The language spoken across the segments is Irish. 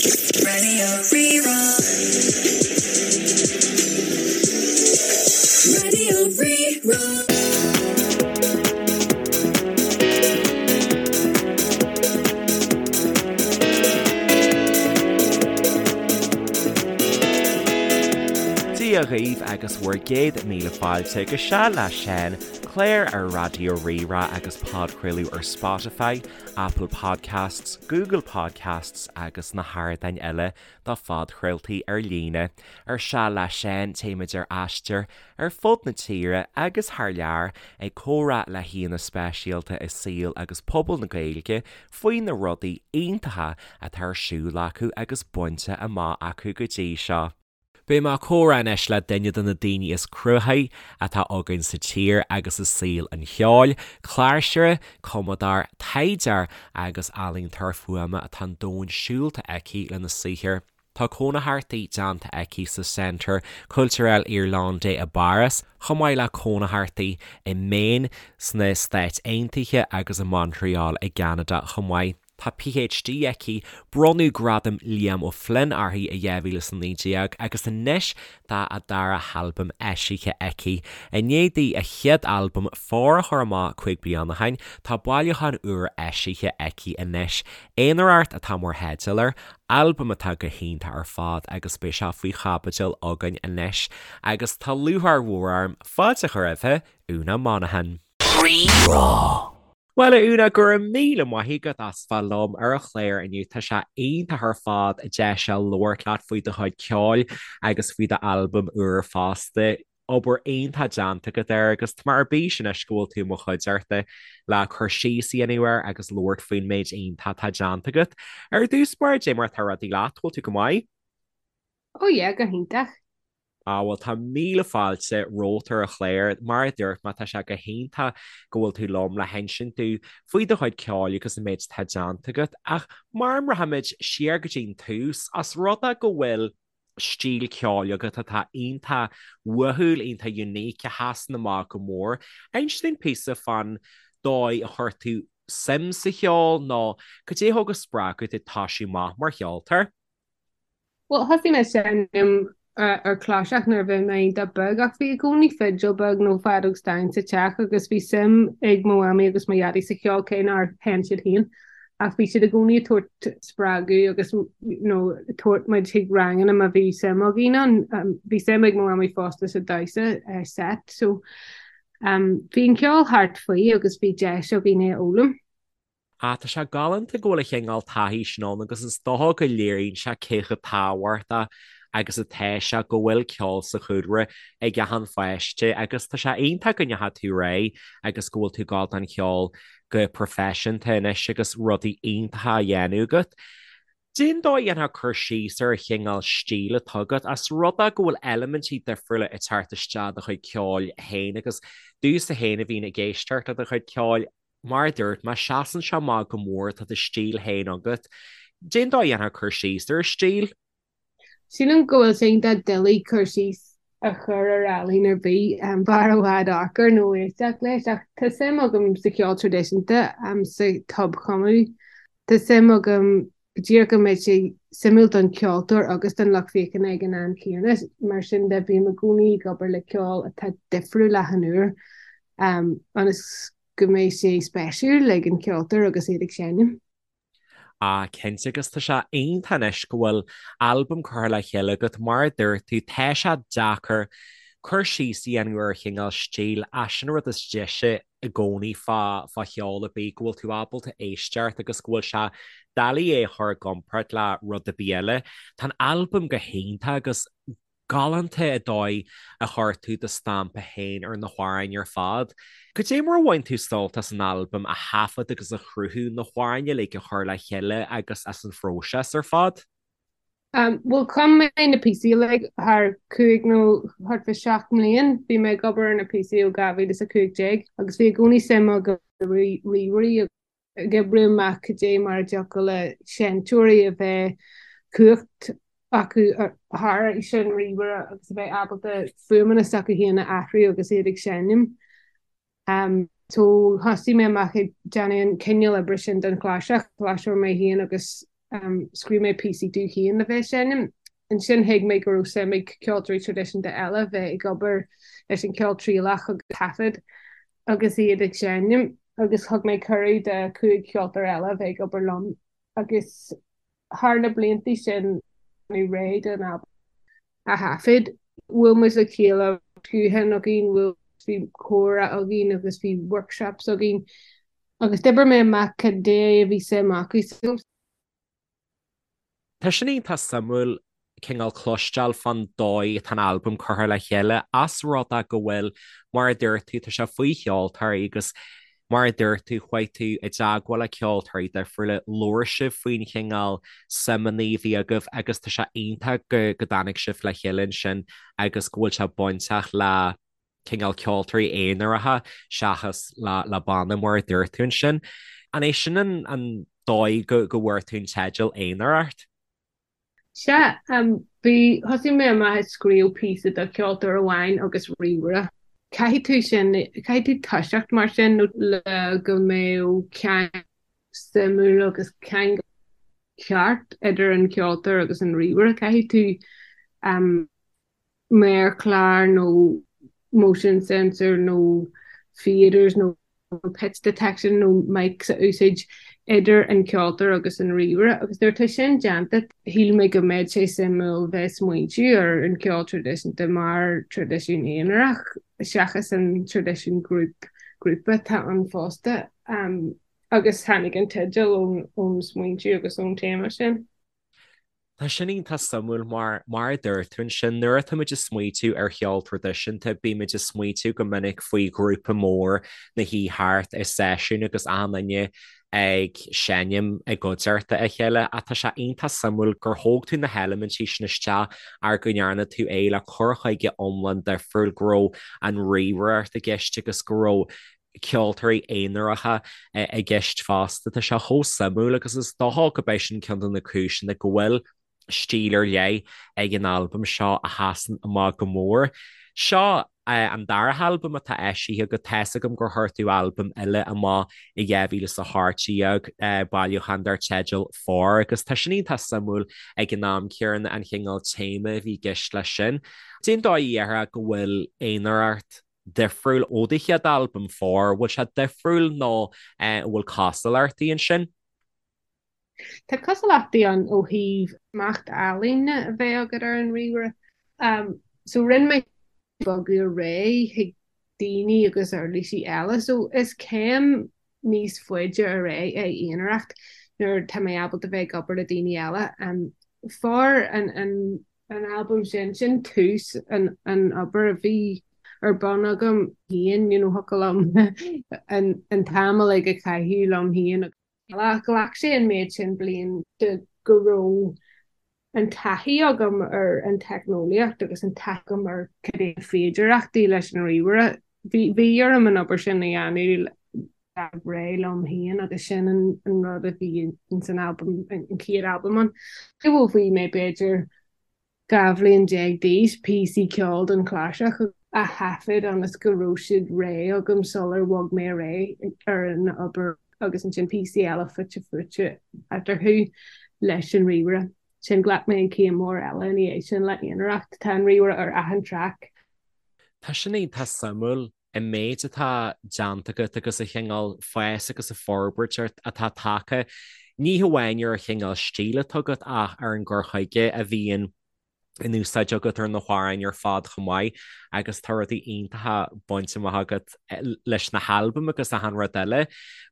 Raidió Rí-Rá. Raidió Rí-Rá. Dia dhaoibh agus bhur gcéad míle fáilte go Seal le Seán, clár ar Raidió Rí-Rá agus podchraoladh ar Spotify, Apple Podcasts, Google Podcasts agus na hardáin eile do phodchraoltaí ar líne. Ar Seal le Seán, téimid ar aistear ar fud na tíre agus thar lear ag comhrá le haíonna speisialta i saol agus pobal na Gaeilge faoi na rudaí iontacha atá ar siúl acu agus bainte amach acu go dtí seo. Beidh mé ag comhrá anois le duine de na daoine is cruthaithí atá againn sa tír agus i saol an cheoil, cláirseoir, cumadóir, taighdeoir agus ealaíontóir fuaime atá an domhan siúlta aici lena saothar. Tá cónaitheachtaí déanta aici sa Centre Culturel Irlandais i bPáras, chomh maith le cónaitheachtaí i Maine sna Stáit Aontaithe agus i Montreal i gCeanada chomh maith. Tá PhD aici, bronnadh Gradam Liam O'Flynn uirthi i 2019 agus anois tá a dara halbam eisithe aici. I ndiaidh di a chéad albam Fóir a chur amach 5 bliana ó shin, tá bailiúchán úr eisithe aici anois, Aonaracht atá mar theideal air, albam atá go hiontach ar fad agus beidh sé faoi chaibidil againn anois. Agus tá lúcháir mhór orm fáilte a chur roimhe, Úna Monaghan. Rí-Rá. Bhuel, a Úna, go raibh míle maith agat as bheith liom ar an chlár inniu. Tá sé iontach ar fad deis a labhairt leat faoi do chuid ceoil agus faoi d'albam úr fosta. Obair iontach déanta agat air agus tá mé ar bís anois go bhfuil tú i mo chuideachta le cur síos a dhéanamh air agus labhairt faoin méid iontach atá déanta agat. Ar dtús báire, cad é mar atá rudaí leat, bhfuil tú go maith? Oh yeah, go hiontach. Á, bhuel, tá míle fáilte romhat ar an chlár. Mar a dúirt mé, tá sé go hiontach go bhfuil tú liom le hinsint dúinn faoi do chuid ceoil agus an méid atá déanta agat. Ach mara mbraithimid siar go dtí an tús, as rud é go bhfuil stíl ceoil agat atá iontach uathúil, iontach unique, a sheasann amach go mór, inis dúinn píosa fán dóigh a chuir tú suim sa cheol nó cad é a thug an spreagadh duit toisiú amach mar cheoltóir? Bhuel, thosaigh mé ag seinm ar chláirseach nuair a bhí mé iontach beag ach bhí i gcónaí fidil beag nó feadóg stáin sa teach agus bhí suim ag mo mhamaí agus mo dhaidí sa cheol cé nár sheinn siad féin ach bhí siad i gcónaí ag tabhairt spreagadh agus you know ag tabhairt muid chuig ranganna má bhí suim againn ann. Bhí suim ag mo mhamaí fosta sa damhsa set so bhí an ceol thart faoi agus bhí deis againn é a fhoghlaim. Ah, tá sé galánta go bhfuil an chineál taithí sin ann agus is dócha go léiríonn sé cé chomh tábhachtach agus atá sé go bhfuil ceol sa chúlra ag achan pháiste agus tá sé iontach go ndeachaigh tú ar aghaidh agus go bhfuil tú ag gabháil don cheol go proifisiúnta anois agus rudaí iontacha á dhéanamh agat. Cén dóigh a ndéanfá cur síos ar an chineál stíl atá agat, as rud é go bhfuil eilimintí difriúla ag teacht isteach i do chuid ceoil féin agus domhsa féin a bhíonn ag éisteacht le do chuid ceoil, Mar a dúirt mé, seasann sé amach go mór, tá do stíl féin agat. Cén dóigh a ndéanfá cur síos ar an stíl? Sílim go bhfuil sé iontach doiligh cur síos a chur ar ealaín ar bith, b'fhearr i bhfad amharc air nó éisteacht leis, ach tá suim agam sa cheol traidisiúnta, sa tobchumadh. Tá suim agam go díreach go mbeidh sé suimiúil don cheoltóir agus don lucht féachana ag an am céanna. Mar sin de, bím i gcónaí ag obair le ceol atá difriúil achan uair, ionas go mbeidh sé spéisiúil ag an cheoltóir agus iad ag seinm. Ah, cinnte, agus tá sé iontach anois go bhfuil albam curtha le chéile agat, mar a dúirt tú, tá sé deacair cur síos a dhéanamh ar chineál stíl, ach sin an rud is deise i gcónaí fá fá cheol ar bith, go bhfuil tú ábalta éisteacht agus go bhfuil sé doiligh é a chur i gcomparáid le rud ar bith eile. Tá an albam go hiontach agus galánta an dóigh a chuir tú do stampa féin ar na hamhráin ar fad. Cad é mar a bhain tú sult as an albam a thaifead agus a chruthú, na hamhráin uilig a chur le chéile agus as an phróiseas ar fad? Bhuel, chum mé na píosaí uilig thar chúig nó thart fá sheacht mbliain. Bhí mé ag obair ar na píosaí ó 2015 agus bhí i gcónaí suim agam i ríomhairí ag oibriú amach cad é mar a dtiocfadh le seinnteoirí a bheith cumhacht acu thar an ríomhaire agus a bheith ábalta fuaimeanna s'acu féin a athrú agus iad ag seinm. So thosaigh mé amach ag déanamh an cineál oibre sin don chláirseach, cláirseoir mé féin agus. Scríobh mé píosaí domh féin le bheith ag seinm. Ansin thuig mé go raibh suim ag ceoltóirí traidisiúnta eile bheith ag obair leis an cheol trialach agus taifead agus iad ag seinm agus thug mé cuireadh do chúig cheoltóir eile bheith ag obair liom agus thar na blianta sin bhí réidh don albam a thaifead. Bhuail muid le chéile guthán againn, bhuail bhí comhrá againn agus bhí workshops againn agus d'oibir mé amach cad é a bhí suim acu. Tá sin iontach suimiúil cineál cloisteáil fán dóigh atá an albam curtha le chéile, as rud é go bhfuil, mar a dúirt tú, tá sé faoi cheoltóirí agus mar a dúirt tú, chuaigh tú i dteagmháil le ceoltóirí difriúla, labhair sibh faoin chineál suimeanna a bhí agaibh agus tá sé iontach go go dtáinig sibh le chéile ansin agus go bhfuil sé bainteach le cineál ceoltóirí aonaracha seachas le le banna mar a dúirt tú ansin. An é sin an an dóigh go go bhfuair tú an teideal Aonaracht? Sea, bhí, thosaigh mé amach ag scríobh píosa do cheoltóir amháin agus ríomhaire. Caithfidh tú sin, caithfidh tú toiseacht mar sin nó le go mbeadh ceangal suimiúil agus ceangal ceart idir an ceoltóir agus an ríomhaire. Caithfidh tú méarchlár nó motion sensor nó faders nó pitch detection nó mics a úsáid idir an ceoltóir agus an ríomhaire agus nuair atá sin déanta shíl mé go mbeadh sé suimiúil bheith smaointiú ar an ceol traidisiúnta mar traidisiún aonarach seachas an traidisiún grúpa atá ann fosta agus tháinig an teideal ón smaointiú agus ón téama sin. Tá sin iontach suimiúil mar, mar a dúirt tú ansin, nuair atá muid ag smaoitiú ar cheol traidisiúnta, bímid ag smaoitiú go minic faoi ghrúpa mór ina shuí thart i seisiún agus achan duine ag seinm i gcuideachta a chéile ach tá sé iontach suimiúil gur thóg tú na heilimintí sin isteach ach go ndearna tú é le cur chuige iomlán difriúil, go raibh an ríomhaireacht i gceist agus go raibh ceoltóirí aonaracha i gceist fosta. Tá sé chomh suimiúil agus is dócha go b'é sin ceann de na cúiseanna go bhfuil stíl ar leith ag an albam seo a sheasann amach go mór. Seo an dara halbam atá eisithe agat, tá's agam gur chuir tú albam eile amach i 2018, bailiúchán dar teideal For, agus tá sin iontach suimiúil ag an am céanna an chineál téama a bhí i gceist leis sin. Cén dóigh a ndéarfá go bhfuil Aonaracht difriúil ó do chéad albam, For? Bhfuil sé difriúil nó an bhfuil cosúlachtaí ansin? Tá cosúlachtaí ann ó thaobh smacht ealaíne a bheith agat ar an ríomhaire. So rinne mé bogadh ar aghaidh chuig daoine agus uirlisí eile. So is céim níos faide ar aghaidh é aonaracht nuair tá mé ábalta bheith ag obair le daoine eile. For an an an albam sin, sin tús an an obair a bhí ar bun agam féin, you know, thiocfadh liom an an t-am uilig a chaitheamh liom féin. Ghlac sé an méid sin bliain de go raibh an taithí agam ar an teicneolaíocht agus an taithí agam ar cad é na féidearthachtaí leis an ríomhaire. Bhí bhí orm an obair sin a dhéanamh réidh liom féin agus sin an an rud a bhí ins an albam, an chéad albam ann. Ó bhí mé b'fhéidir 12 bhliain d'aois, píosaí ceoil don chláirseach a thaifead ionas go raibh siad réidh agam sular bhog mé ar aghaidh ar an obair agus ansin píosaí eile fite fuaite eatarthu leis an ríomhaire. Sin ghlac mé an chéim mór eile ina dhiaidh sin le aonaracht. Tá an ríomhaire ar achan traic. Tá sin iontach suimiúil, an méid atá déanta agat agus an chineál fás agus an forbairt atá tagtha, ní hamháin ar an chineál stíl atá agat ach ar an gcur chuige a bhíonn in úsáid agat ar na hamhráin ar fad chomh maith agus tá rudaí iontacha bainte amach agat leis na halbaim agus achan rud eile.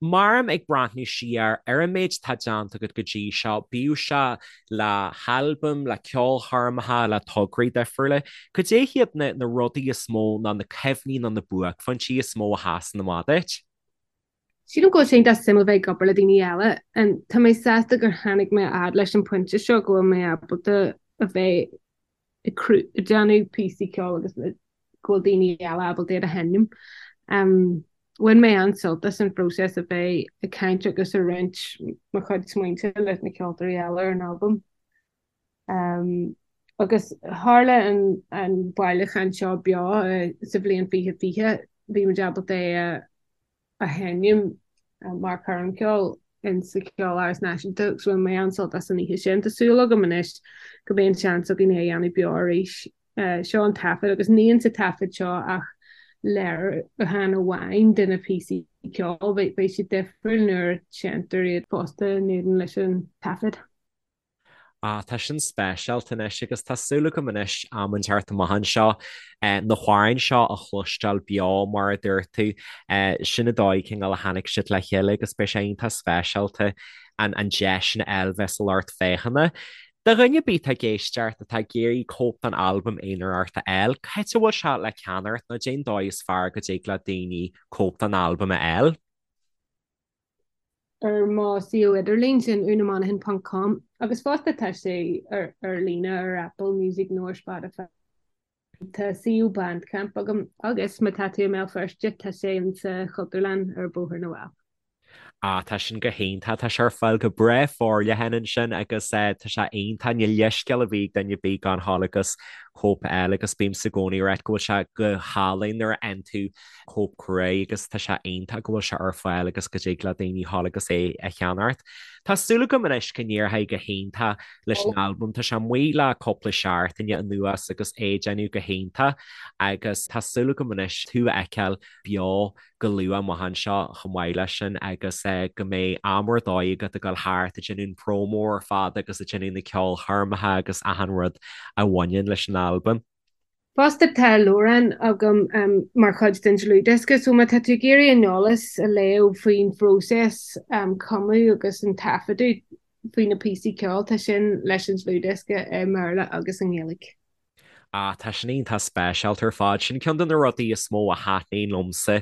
Mar ag breathnú siar ar an méid atá déanta agat go dtí seo, bíodh sé le halbaim, le ceolchoirmeacha, le tograí difriúla, cad é hiad na na rudaí is mó nó na cuimhní nó na buaicphointí is mó a sheasann amach duit? Sílim go bhfuil sé iontach suimiúil bheith ag obair le daoine eile. Tá mé sásta gur tháinig mé a fhad leis an pointe seo go bhfuil mé ábalta a bheith ag déanamh píosaí ceoil agus go bhfuil daoine eile ábalta iad a sheinm. Bhain mé an-sult as an phróiseas a bheith ag caint agus ag roinnt mo chuid smaointe leis na ceoltóirí eile ar an albam. Agus tharla an bailiúchán seo beo sa bhliain 2020, bhí muid ábalta é a a sheinm mar choirm cheoil. in sa Cheoláras Náisiúnta agus bhain mé an-sult as an oíche sin. Tá súil agam anois go mbeidh an seans againn é a dhéanamh beo arís. Seo an taifead agus níl sa taifead seo ach léiriúchán amháin de na píosaí ceoil. Beidh siad difriúil nuair a seinntear iad fosta in éadan leis an taifead. Ah, tá sin speisialta anois agus tá súil agam anois am inteacht amach anseo na hamhráin seo a chloisteáil beo mar a dúirt tú. Sin an dóigh cineál a tháinig siad le chéile agus beidh sé iontach speisialta an an deis sin a fháil bheith sa lucht féachana. Do dhuine ar bith atá ag éisteacht atá ag iarraidh cóip den albam Aonaracht a fháil, cá háit a bhfuil sé le ceannacht nó cén dóigh is fearr go dtig le daoine cóip den albam a fháil? Ar mo suíomh idirlín, sin unamonaghan ponc com, agus fosta tá sé ar ar líne ar Apple Music nó ar Spotify. Tá suíomh Bandcamp agam agus má tá tú i mBéal Feirste tá sé insa Chultúrlann ar Bhóthar na bhFál. Ah, tá sin go hiontach, tá sé ar fáil go breá forleathan ansin agus tá sé iontach, níl leithscéal ar bith ag duine ar bith gan dhul agus cóip a fháil agus bímse i gcónaí ag ráit go bhfuil sé go hálainn nuair a fhaigheann tú cóip crua agus tá sé iontach go bhfuil sé ar fáil agus go dtig le daoine dhul agus é a cheannacht. Tá súil agam anois go n-éireoidh go hiontach leis an albam, tá sé amuigh le cúpla seachtaine anuas agus é ag déanamh go hiontach agus tá súil agam anois tú a fheiceáil beo go luath amach anseo chomh maith leis sin agus go mbeidh am ar dóigh agat ag dul thart ag déanamh an promo ar fad agus ag déanamh na ceolchoirmeacha agus achan rud a bhaineann leis an albam. Fosta tá leabhrán agam mar chuid den dlúthdhiosca so má tá tú ag iarraidh an eolas a léamh faoin phróiseas cumadh agus an taifeadadh faoi na píosaí ceoil tá sin leis an dlúthdhiosca i mBéarla agus i nGaeilge. Ah, tá sin iontach speisialta ar fad. Sin ceann de na rudaí is mó a thaitníonn liomsa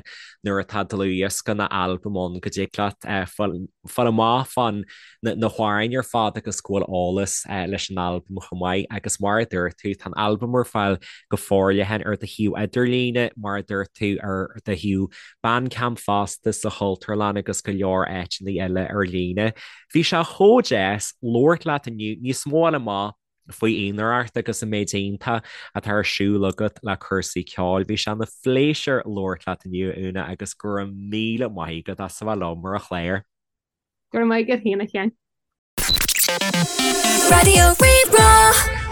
nuair atá dlúthdhiosca nó albam ann go dtig leat fáil amach fán na hamhráin ar fad agus go bhfuil eolas leis an albam chomh maith agus mar a dúirt tú, tá an albam ar fáil go forleathan ar do shuíomh idirlíne, mar a dúirt tú, ar do shuíomh Bandcamp fosta, sa Chultúrlann agus go leor áiteanna eile ar líne. Bhí sé chomh deas labhairt leat inniu, níos mó a fháil amach faoi Aonaracht agus an méid iontach atá ar siúl agat le cúrsaí ceoil. Bhí sé ina phléisiúr labhairt leat inniu, a Úna, agus go raibh míle maith agat as a bheith liom ar an chlár. Go raibh maith agat féin, a Sheáin. Raidió Rí-Rá.